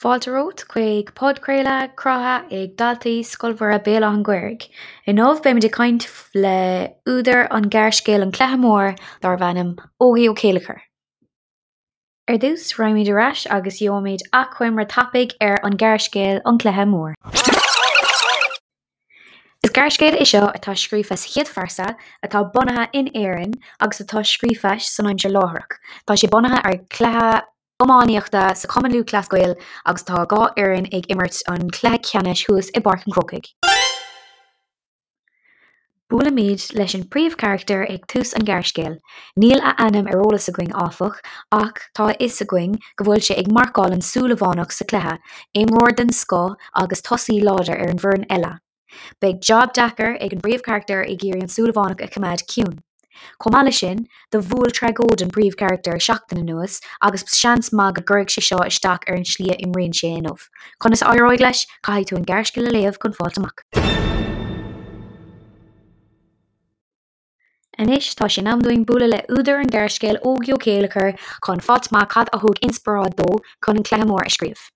Fáilte romhat chuig podchraoladh cruthaithe ag daltaí Scoil Mhuire Béal Átha an Ghaorthaidh. Inniu beimid ag caint le údar an ghearrscéil An Cluiche Mór darbh ainm Ógie Ó Céilleachair. Ar dtús, raghaimid ar ais agus gheobhaimid achoimre tapaidh ar an ghearrscéal An Cluiche Mór. Is gearrscéal é seo atá scríofa sa chéad phearsa, atá bunaithe in Éirinn agus atá scríofa san aimsir láithreach. Tá sé bunaithe ar chluiche iománaíochta sa Chumann Lúthchleas Gael agus tá 2 fhoireann ag imirt an chluiche ceannais thuas i bPáirc an Chrócaigh. Buailimid leis an príomhcharachtar ag tús an ghearrscéil. Níl a ainm ar eolas againn áfach ach tá a fhios againn go bhfuil sé ag marcáil an Súilleabhánach sa chluiche, imreoir den scoth agus tosaí láidir ar an bhfoireann eile. Beidh jab deacair ag an bpríomhcharachtar ag iarraidh an Súilleabhánach a choimeád ciúin. Chomh maith leis sin, do bhuail tragóid an príomhcharachtar seachtain anuas agus seans maith go gcuirfidh sé seo isteach ar an slí a imríonn sé inniu. Conas a éireoidh leis? Caithfidh tú an gearrscéal a léamh chun fáilt amach. Anois tá sé in am dúinn bualadh le údar an ghearrscéil Ógie Ó Céilleachair chun fáilt amach cad a thug inspioráid dó chun an Cluiche Mór a scríobh.